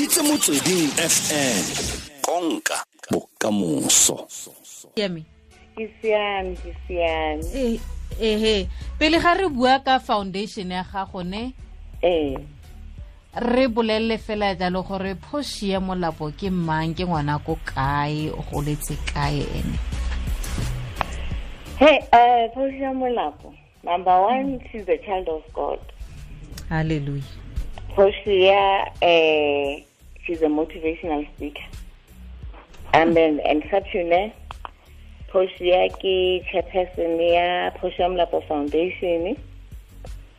reditse Motsweding FM, konka bokamoso. Siame. Ke siame, ke siame. Ehe, pele ga re bua ka foundation ya gago ne? Ee. Re bolelle fela jalo gore Portia Molapo ke mang, ke ngwana ko kae, o goletse kae ene? Hey, Portia Molapo, number one, she's a child of God. Hallelujah. Portia, she's a motivational speaker. And then entrepreneur. Portia ke chairperson ya Portia Molapo Foundation.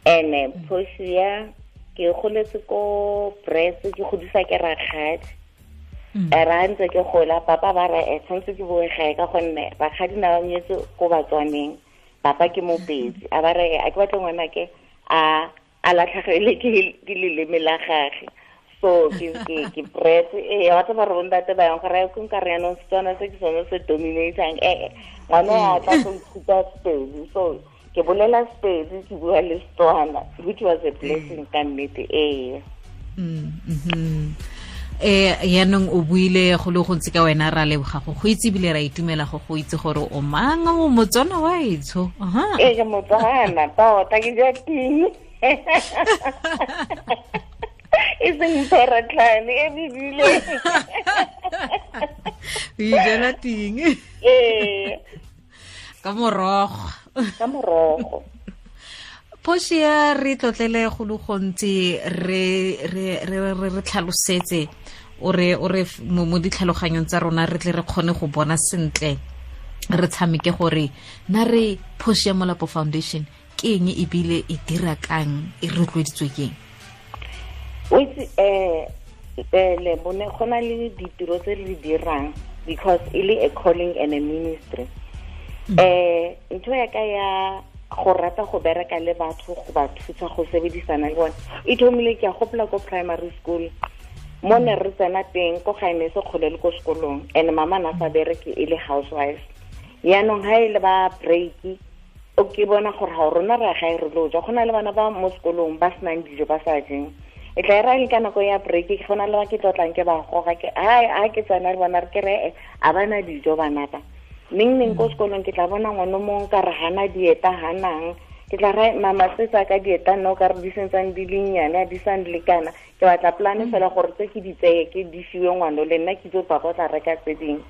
And Portia ke goletse ko Brits, ke godisa ke rakgadi. Ra ntse ke gola, papa ba re, tshwanetse ke boe gae ka gonne rakgadi na ba nyetse ko Batswaneng. Papa ke Mopedi. A ba re, a ke batle ngwana ke a latlhagele ke leleme la gagwe. So ke Brits, wa tseba gore bontate ba yang gore ke nka re yanong Setswana se ke sone se dominatang. Ngwana a tla go ithuta Sepedi. So ke bolela Sepedi, ke bua le Setswana, which was a blessing ka nnete. Yaanong o buile go le gontsi ka wena, ra leboga go itse ebile ra itumela go itse gore o mang, o Motswana wa etsho. Ee, ke Motswana tota, ke ja ting. E seng pheratlhane, e bebile. O ijela ting. Ee. Ka morogo. Ka morogo. Portia, re tlotlele go le gontsi, re tlhalosetse, o re mo ditlhaloganyong tsa rona re tle re kgone go bona sentle, re tshameke gore na re Portia Molapo Foundation ke eng ebile e dira kang, e rotloeditswe ke eng? O itse, le bone go na le ditiro tse re di dirang because e le a calling and a ministry. Ntho ya ka ya go rata go bereka le batho, go ba thusa go sebedisana le bone, e thomile ke a gopola ko primary school mo ne re tsena teng ko gae ne se kgole le ko sekolong, and mama na sa bereke e le housewife. Yaanong ha e le ba break, o ke bona gore ga rona re gae re lo ja, go na le bana ba mo sekolong ba senang dijo ba sa jeng. E tla era le ka nako ya break, ke gona le ba ke tlotlang ke ba goga ke ai a ke tsena le bona re ke re a bana dijo bana ba. Neng ko sekolong ke tla bona ngwana mongwe ka re hana dieta hanang, ke tla re mama se tsa ka dieta nna o ka re di sentsane di le nnyane, di sa nlekana. Ke batla plan fela gore tse ke di tseye ke di fiwe ngwana le nna ke itse papa o tla reka tse dingwe.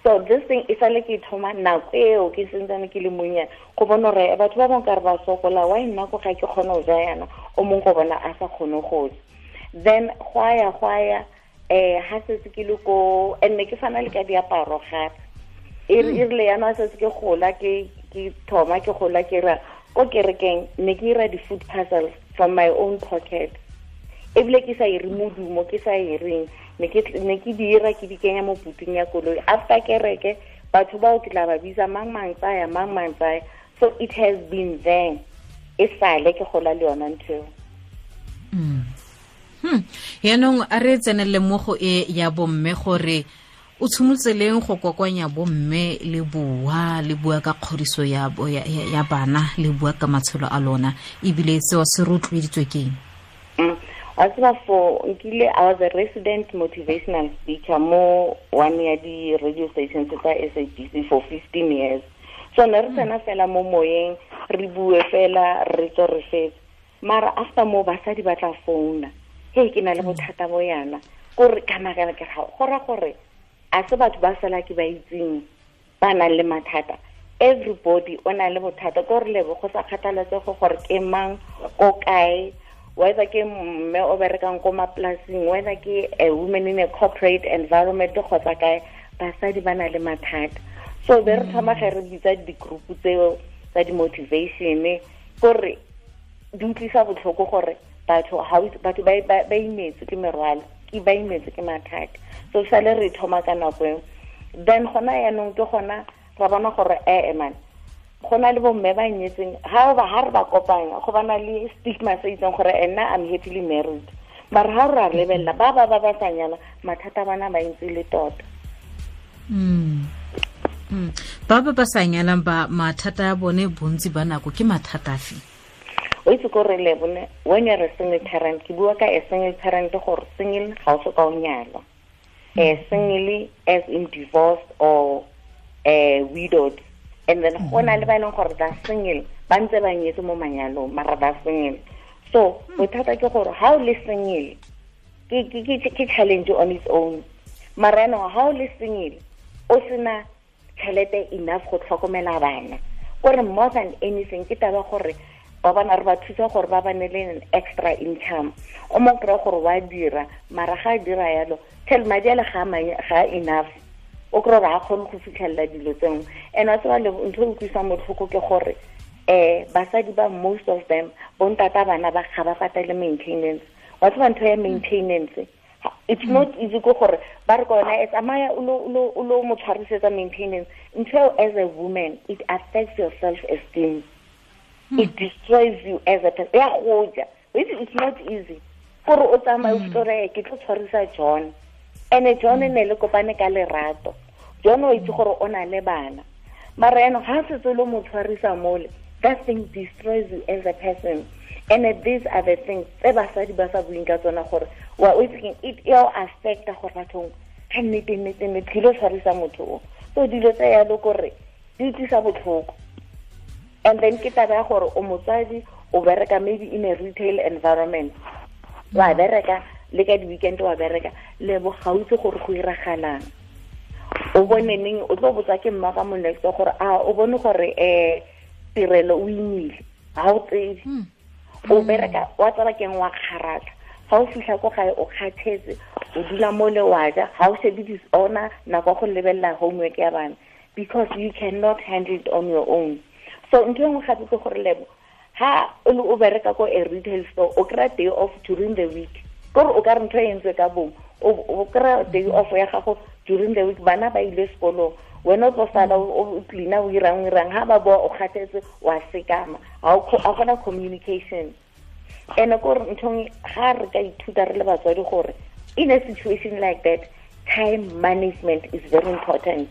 So this thing e sale ke thoma nako eo ke sentsane ke le monyane, go bona gore batho ba bangwe ka re ba sokola, why nna ko ga ke kgone go ja yana, o mongwe go bona a sa kgone go ja. Then go ya ha setse ke le ko, and ne ke fana le ka diaparo gape. E rile yana setse ke gola, ke thoma ke gola ke ra ko kerekeng, ne ke ira di-food parcels from my own pocket. Ebile ke sa ire modumo, ke sa ireng, ne ke di ira ke di kenya mo puting ya koloi. After kereke batho bao ke tla ba bitsa mang mang tsaya, mang mang tsaya. So it has been there, e sale ke gola le yona ntho eo. Yaanong a re tsenelele mo go e ya bomme gore o tshimolotse leng go kokoanya bomme le bua, le bua ka kgodiso ya bana, le bua ka matshelo a lona, ebile seo se rotloeditswe ke eng? Wa tseba for nkile, I was a resident motivational speaker mo one ya di radio stations tsa SABC for 15 years. So ne re tsena fela mo moyeng, re bue fela, re tswe re fetse. Mara after mo basadi ba tla founa, hey ke na le bothata bo yana, kore ka makala ke ga go ra gore a se batho ba sala ke ba itseng ba nang le mathata. Everybody o na le bothata, ko re lebo go sa kgathaletsege gore ke mang, ko kae, whether ke mme o berekang ko mapolasing, whether ke a woman in a corporate environment kgotsa kae, basadi ba na le mathata. So be re thoma ge re bitsa di-group tseo tsa di-motivation, kore di utlwisa botlhoko gore batho ba imetse ke merwalo, ke ba imetse ke mathata. So sale re thoma ka nako eo. Then gona yaanong ke gona ra bona gore man, go na le bomme ba nyetseng, ha re ba kopanya go bana le stigma se itseng gore nna I'm happily married. Mara ha re a lebelela ba ba sa nyala, mathata bana ba ntse le tota. Ba ba sa nyalang ba mathata a bone bontsi ba nako ke mathata afe? O itse ko re le bone when you're a single parent, ke bua ka a single parent gore single ga o soka o nyalwa. Single as in divorced or widowed. And then go na le ba e leng gore ba single, ba ntse ba nyetse mo manyalong, mara ba single. So bothata ke gore ha o le single ke challenge on its own. Mara yaanong ha o le single o sena tšhelete enough go tlhokomela bana. Kore more than anything ke taba gore ba bana re ba thusa gore ba bane le an extra income. O mo kry-a gore wa dira, mara ga a dira yalo tšhele madi ale ga enough. O kry-a gore ga kgone go fitlhelela dilo tse nngwe. And wa tseba le ntho e utlwisang botlhoko ke gore basadi ba most of them bontata bana ba ga ba patele maintenance. Wa tseba ntho ya maintenance, it's not easy go gore ba re kona e tsamaya o lo mo tshwarisetsa maintenance. Ntho as a woman, it affects your self-esteem. It destroys you as a person. Ya goja. It's not easy. Gore o tsamaye o fitore ke tlo tshwarisa John. And John ne le kopane ka lerato. John o itse gore o na le bana. Mara yaanong ha setse lo mo tshwarisa mole, that thing destroys you as a person. And these are the things tse basadi ba sa buing ka tsona gore wa o itse it e o affecta gore bathong ka nnete nnete nnete ke lo tshwarisa motho o. So dilo tse yalo kore di tlisa botlhoko. And then ke taba ya gore o motsadi o bereka maybe in a retail environment. Wa bereka le ka di-weekend wa bereka le bo ga o itse gore go iragalang. O bone neng o tlo botsa ke mma ka mo next gore a o bone gore tirelo o imile ga o tsebe. O bereka wa tsaba keng wa kgaratlha. Ga o fitlha ko gae o kgathetse, o dula mo le wa ja, ga o shebe disorder nako go lebelela homework ya bana because you cannot handle it on your own. So ntho e nngwe gape ke gore lebo ha o le o bereka ko a retail store o kry-a day off during the week. Kore o ka re ntho e entswe ka bomo, o kry-a day off ya gago during the week, bana ba ile sekolong, wena o tlo sala o cleaner o irang ha ba boa o kgathetse wa sekama, ga gona communication. And kore nthong ga re ka ithuta re le batswadi gore in a situation like that, time management is very important.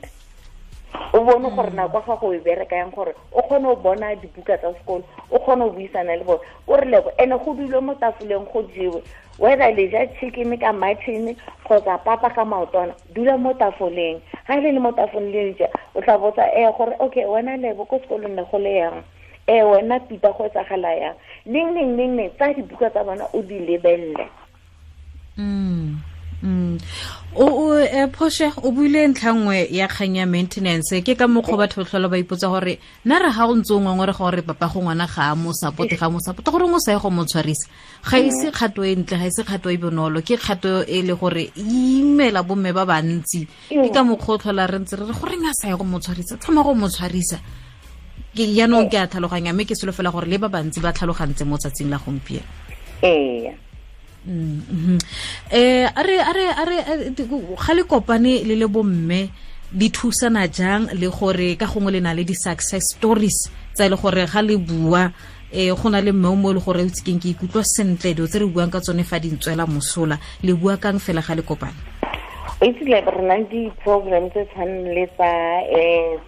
O bone gore nako ga go e bereka yang gore o kgone go bona dibuka tsa sekolo, o kgone go buisana le bone. O re lebo ene go dulwe mo tafoleng go jewe, whether le ja chicken ka mutton kgotsa papa ka maotwana, dula mo tafoleng. Ga le le mo tafoleng le ja, o tla botsa gore okay wena lebo ko sekolong ne go le yang, wena Peter go etsagala yang, neng neng neng neng, tsa dibuka tsa bona o di lebelle. O Portia o buile ntlha nngwe ya kgang ya maintenance. Ke ka mokgwa batho tlhola ba ipotsa gore nna re ga o ntse o ngongore gore papa go ngwana ga a mo support, ga mo support gore o sa ye go mo tshwarisa. Ga ise kgato e ntle, ga ise kgato e bonolo, ke kgato e le gore imela bomme ba bantsi. Ke ka mokgwa o tlhola re ntse re re goreng a sa ye go mo tshwarisa, thoma go mo tshwarisa. Ke jaanong ke a tlhaloganya, mme ke solofela gore le ba bantsi ba tlhalogantse mo tsatsing la gompieno. Ee. A re ga le kopane le le bomme di thusana jang le gore ka gongwe le na le di-success stories tsa e le gore ga le bua go na le mme o mo e le gore o itse keng ke ikutlwa sentle dilo tse re buang ka tsone fa di ntswela mosola, le bua kang fela ga le kopane? O itse le re na le di-program tse tshwanang le tsa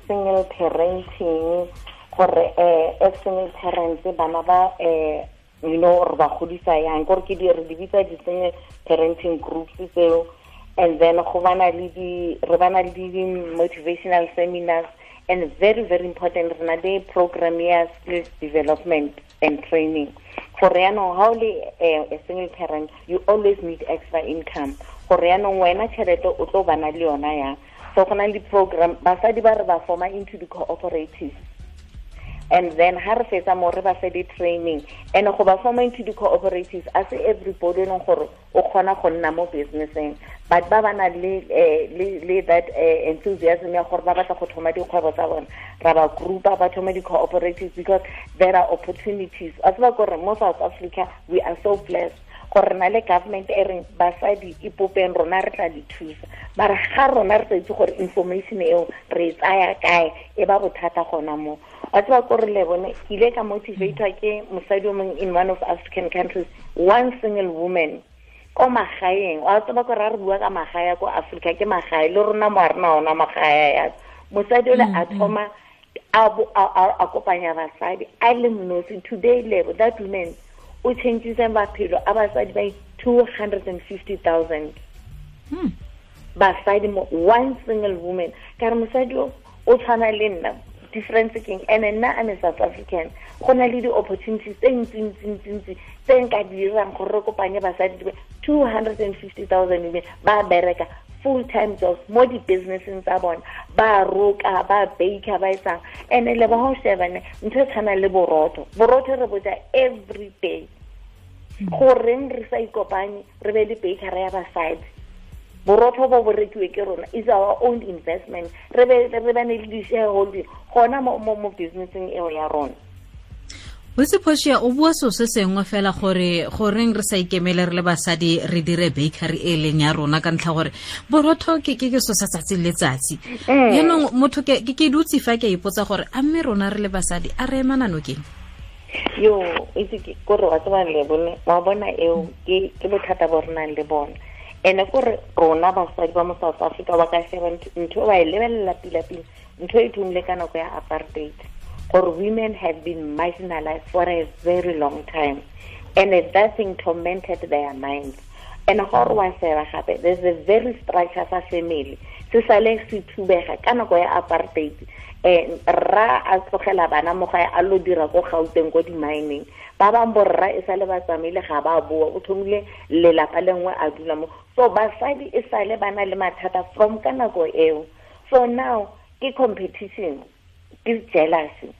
single parenting, gore as single parents bana ba you know re ba godisa yang, gore ke di re di bitsa di-single parenting groups tseo. And then go bana le di re bana le di motivational seminars, and very very important re na le program ya skills development and training. Gore yaanong ha o le a single parent, you always need extra income. Gore yaanong wena tšhelete o tlo bana le yona yang. So go na le program basadi ba re ba forma into the cooperatives. And then ha re fetsa mo re ba fe di-training. And go ba forma into the cooperatives, a se everybody leng gore o kgona go nna mo businesseng, but ba ba na le le that enthusiasm ya gore ba batla go thoma dikgwebo tsa bona, ra ba groupa ba thoma di-cooperatives because there are opportunities. A tseba gore mo South Africa we are so blessed gore na le government e reng basadi ipopeng rona re tla di thusa, mara ga rona re sa itse gore information eo re e tsaya kae, e ba bothata gona mo. Wa tseba kore le bone ke ile ka motivatwa ke mosadi o mongwe in one of African countries, one single woman ko magaeng. Wa tseba kore ha re bua ka magae ko Africa, ke magae le rona mo a rena ona magae ya mosadi ole a thoma A kopanya basadi a le mnosi. Today level that woman o changes maphelo a basadi by 250,000. Basadi mo one single woman. Ka re mosadi o tshwana le nna, difference keng? And nna I'm a South African. Go na le di-opportunities tse ntsi tse nka dirang gore re kopanye basadi 250,000 women ba bereka full-time jobs mo di-businesseng tsa bona, ba roka, ba baker, ba etsang. And le ba ho sheba ne ntho e tshwanang le borotho re boja every day. Goreng re sa ikopanye re be le bakery ya basadi? Borotho bo rekiwe ke rona, is our own investment. Re bane le di-shareholding gona mo businesseng eo ya rona. Botse Portia, o bua so se sengwe fela gore goreng re sa ikemele re le basadi re dire bakery e leng ya rona, ka ntlha gore borotho ke so sa tsatsi le letsatsi. Yaanong motho ke dutse fa ke ipotsa gore a mme rona re le basadi a re emana nokeng? Yo, itse ke gore wa tseba le bone, wa bona eo ke bothata bo re nang le bona. Ene gore rona basadi ba mo South Africa ba ka sheba ntho ba e lebelela pila-pila, ntho e thomile ka nako ya apartheid, gore women have been marginalized for a very long time, and that thing tormented their minds. And gore wa sheba gape, there's a very structure sa family se sale se thubega ka nako ya apartheid. Rra a tlogela bana mo gae a lo dira ko Gauteng ko di-mining, ba bang borra e sale ba tsamaile ga ba boa, o thomile lelapa lengwe a dula mo. So basadi e sale ba na le mathata from ka nako eo. So now ke competition, ke jealousy.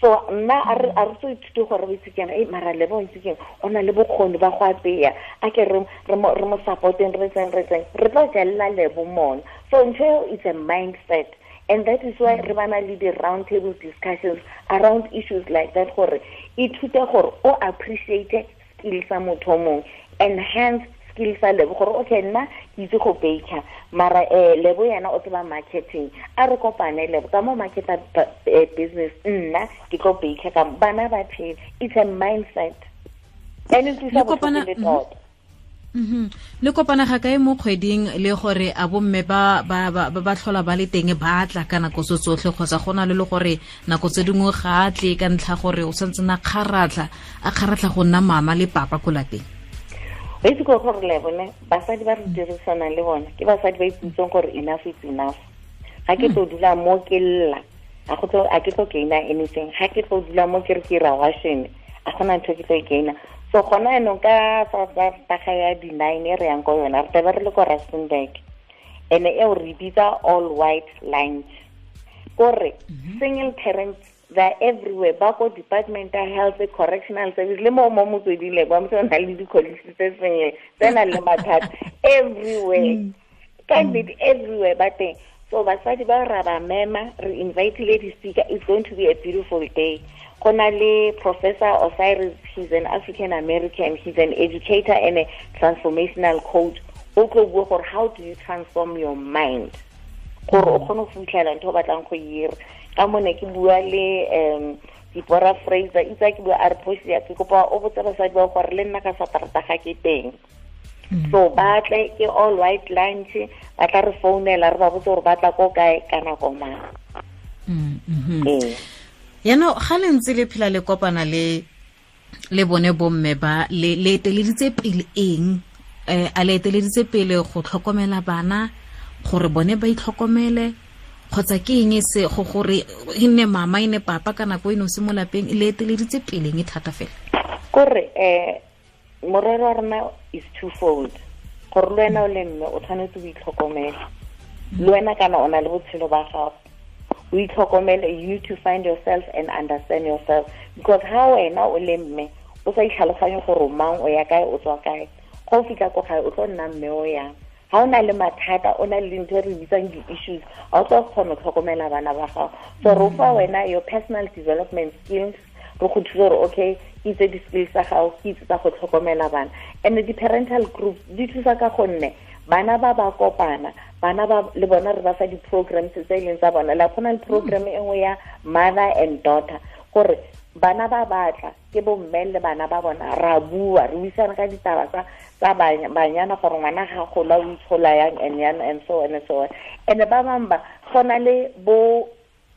So nna a re tso ithute gore o itse keng, mara le bo itse keng, o na le bokgoni ba go apeya, a ke re mo supporteng, re tseng re tlo jella le bo mona. So ntho eo it's a mindset. And that is why re bana le di-round table discussions around issues like that, gore ithute gore o appreciate skills sa motho o mongwe, enhance skills sa Lebo, gore okay nna ke itse go baker, mara Lebo yena o tseba marketing, a re kopane Lebo ka mo marketa business, nna ke tlo baker ka bana ba phela. It's a mindset and it is a kopana tota. Le kopana ga kae mo kgweding le gore a bomme ba ba tlhola ba le teng ba tla ka nako tso tsotlhe, kgotsa gona le gore nako tse dingwe ga a tle ka ntlha gore o santse na kgaratlha a kgaratlha go nna mama le papa ko lapeng? Ba itse gore le bone basadi ba re dirisanang le bona ke basadi ba iputseng gore enough is enough. Ga ke tlo dula mo ke lla, a ke tlo gaina anything. Ga ke tlo dula mo ke re ke ra washing, a gona ntho ke tlo e gaina. So gona yanong ka taga ya di-9 e re yang ko yona, re tlabe re le ko Rustenburg, and eo re bitsa all white lunch. Kore single parents, they're everywhere, ba ko department ya health, correctional service, le mo motsweding le kwa motho o na le di-colleagues tse single tse nang le mathata everywhere, ka nnete everywhere ba teng. So basadi ba ra ba mema, re invitile di-speaker. It's going to be a beautiful day. Go na le Professor Osiris, he's an African American, he's an educator and a transformational coach. O tlo bua gore how do you transform your mind gore o kgone go fitlhela ntho o batlang go e dira. Ka mone ke bua le Deborah Fraser, itse ke bua a re Portia, ke kopa o botse basadi ba gore le nna ka Saterdag ga ke teng. So ba tle ke all white lunch, ba tla re founela re ba botse gore ba tla ko kae ka nako mang. Yaanong ga le ntse le phela le kopana le bone bomme ba le eteleditse pele eng? A le eteleditse pele go tlhokomela bana gore bone ba itlhokomele, kgotsa ke eng se go gore e nne mama e nne papa ka nako e nosi mo lapeng? Le eteleditse pele eng thata fela? Kore morero wa rona is twofold. Gore le wena o le mme o tshwanetse o itlhokomele, le wena kana o na le botshelo ba gago, o itlhokomele. You need to find yourself and understand yourself, because ha wena o le mme o sa itlhaloganye gore mang o ya kae o tswa kae, go fitlha ko gae o tlo nna mme o yang. Ha o na le mathata, o na le dintho e re bitsang di-issues, ga o tlo kgona go tlhokomela bana ba gago. So re fa wena your personal development skills, re go thusa gore okay, ke itse di-skills tsa gago, ke itse tsa go tlhokomela bana. And di-parental groups di thusa ka gonne bana ba ba kopana, bana ba le bona re ba fa di-programs tse e leng tsa bona. La go na le program e nngwe ya mother and daughter, gore bana ba batla ke bo mme le bana ba bona, ra bua, re buisana ka ditaba tsa banyana gore ngwana ga gola o itshola yang and yang and so on and so on. And ba bangwe ba go na le bo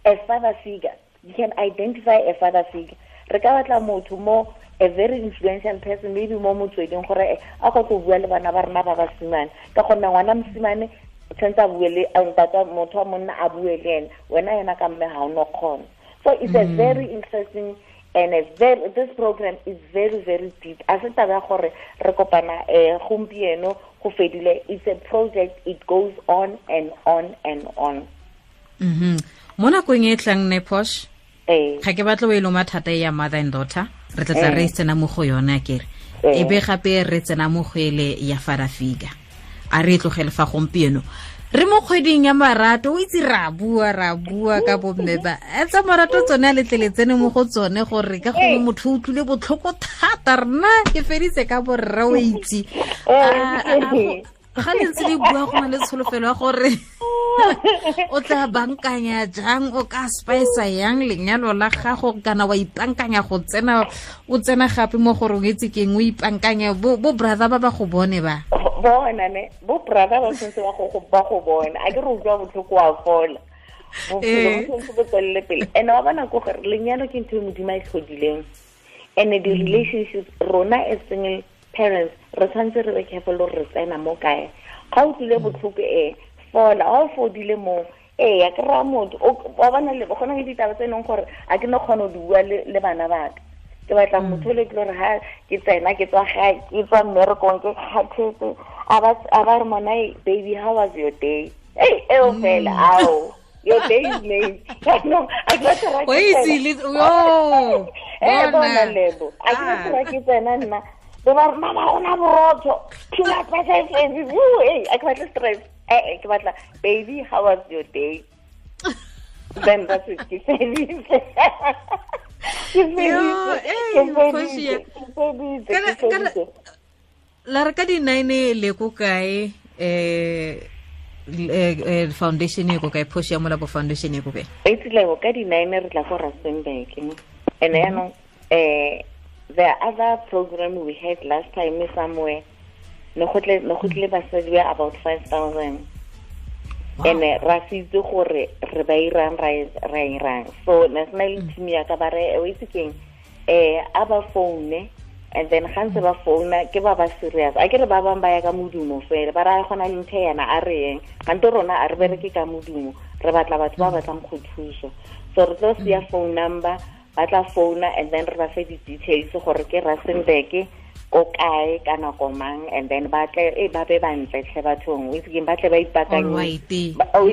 a father figure. You can identify a father figure. Re ka batla motho mo, a very influential person, maybe mo motsweding, gore a go tlo bua le bana ba rena ba basimane, ka gonne ngwana mosimane tshwanetse a bue le ntata, motho wa monna a bue le ene, wena yena ka mme ga o no kgona. So it's a very interesting and a very, this program is very, very deep. A se taba ya gore re kopana gompieno go fedile. It's a project, it goes on and on and on. Mo nakong e tlang ne, Posh, ga ke batlo o e loma thata ya mother and daughter, re tla re tsena mo go yone akere, e be gape re tsena mo go ele ya father figure. A re tlogele fa gompieno, re mo kgweding ya marato, o itse ra bua ka bomme ba tsa marato, tsone a letlele tsene mo go tsone, gore ka gongwe motho o utlwile botlhoko thata, rena ke feditse ka borre, o itse ga le ntse le bua go na le tsholofelo ya gore o tla bankanya jang, o ka spice yang lenyalo la gago, kana wa ipankanya go tsena, o tsena gape mo gore o itse keng, o ipankanya bo brother ba ba go bone ba bona ne, bo brother ba sentse ba go bona, a ke re utlwa botlhoko wa fola, bophelo bo sentse bo tswelele pele. And wa bona ko gore lenyalo ke ntho e Modimo a e tlhodileng, and the relationships rona as single parents re tshwanetse re be careful gore re tsena mo kae. Ga o tlile botlhoko fola, ga o fodile mo, ya kry-a motho wa bona le gona le ditaba tse e leng gore a ke no kgona go di bua le bana baka. Ke batla motho le ke gore ha ke tsena ke tswa gae, ke tswa mmerekong, ke kgathetse, a ba re mona, baby, how was your day? Hey, eo fela, ao, your day is made. No, a ke batla ra ke bona lebo, a ke batla ra ke tsena nna, be ba re mama gona borotho, peanut butter, a ke batla stress. Ke batla baby, how was your day? Then that's it, ke feditse. La re ka di-9 le ko kae, foundation e ko kae, Portia Molapo Foundation e ko kae? Itse ka di-9 re tla ko Rustenburg. And yaanong the other program we had last time somewhere, ne go tle basadi ba about 5,000. And ra se itse gore re ba irang, ra irang. So national team ya ka ba re o itse keng, a ba phone, and then ga ntse ba founa ke ba ba serious. A ke re ba bang ba ya ka modumo fela, ba ra gona le ntho yana a re eng, gante rona a re bereke ka modumo, re batla batho ba batlang go thusa. So re tlo sia phone number, ba tla founa, and then re ba fe di-details gore ke Rustenburg ko kae ka nako mang, and then ba tle ba be bantle tlhe bathong, o itse keng, ba tle ba ipakanye. O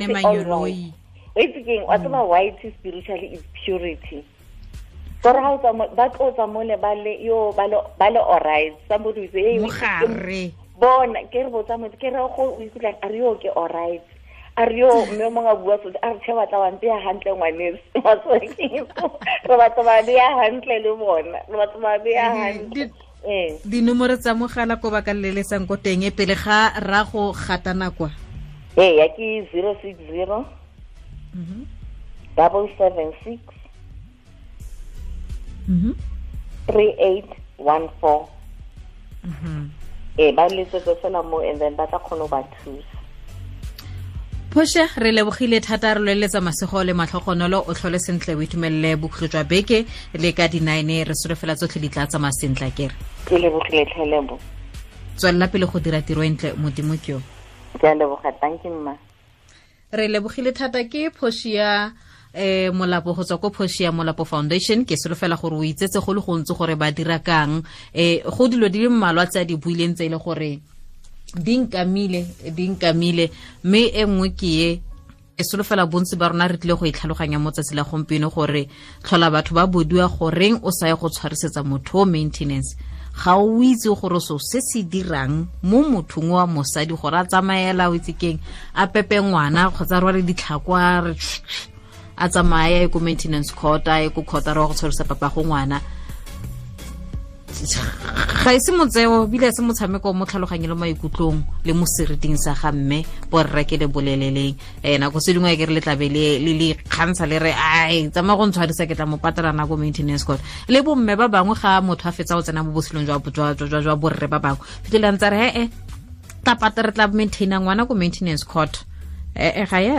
itse keng, wa tseba white spiritually is purity. Gore ha o tswa ba tlo tswa mole ba le yo ba le alright, somebody will say hey, mogare bona ke re botsa motho, ke re go o ikutlwa a re yo ke alright, a re yo mme o mongwe a bua so, a re tšhe batla wa mpeya hantle ngwaneso, re batla ba beya hantle le bona, re batla ba beya hantle. Dinomoro tsa mogala ko ba ka leletsang ko teng pele ga ra go gatana kwa? Ya ke 060 776 3814. Ba letsetse fela mo, and then ba tla kgona go ba thusa. Portia, re lebogile thata, re loeletsa masego le matlhogonolo, o tlhole sentle, o itumelele bokhutlo jwa beke le ka di-9, re solofela tsotlhe di tla tsamaya sentle akere. Ke lebogile tlhelebo. Tswelela pele go dira tiro e ntle, Modimo ke yo. Ke a leboga, thank you mma. Re lebogile thata ke Portia Molapo go tswa ko Portia Molapo Foundation. Ke solofela gore o itsetse go le gontsi gore ba dira kang, go dilo di le mmalwa tse a di buileng tse e le gore di nkamile, mme e nngwe ke e e solofela bontsi ba rona re tlile go e tlhaloganya mo tsatsi la gompieno, gore tlhola batho ba bodiwa goreng o sa ye go tshwarisetsa motho o maintenance, ga o itse gore so se se dirang mo mothong wa mosadi gore a tsamaela o itse keng, a pepe ngwana kgotsa rwale ditlhako a re a tsamaya ye ko maintenance court, a ye ko court a re wa go tshwarisa papa go ngwana. Ga e se motseo, bile se motshameko mo tlhaloganyong le maikutlong le mo seriting sa ga mme borre ke le boleleleng. Nako se dingwe ke re le tlabe le le kgantsha le re ai tsamaya go ntshwarisa ke tla mo patela nako maintenance court. Le bomme ba bangwe ga motho a fetsa go tsena mo botshelong jwa borre ba bangwe, fitlhelang tsa re tla patela, re tla maintaina ngwana ko maintenance court. Ga ya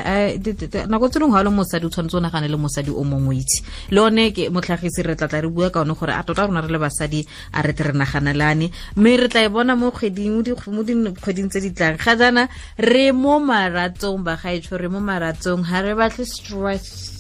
nako tse dingwe ga le mosadi o tshwanetse o nagane le mosadi o mongwe itse le one ke motlhagisi re tlatla re bua ka one gore a tota rona re le basadi a re tle re naganelane mme re tla e bona mo kgweding mo dikgweding tse di tlang. Ga jaana re mo maratsong bagaetsho, re mo maratsong, ga re batle stress.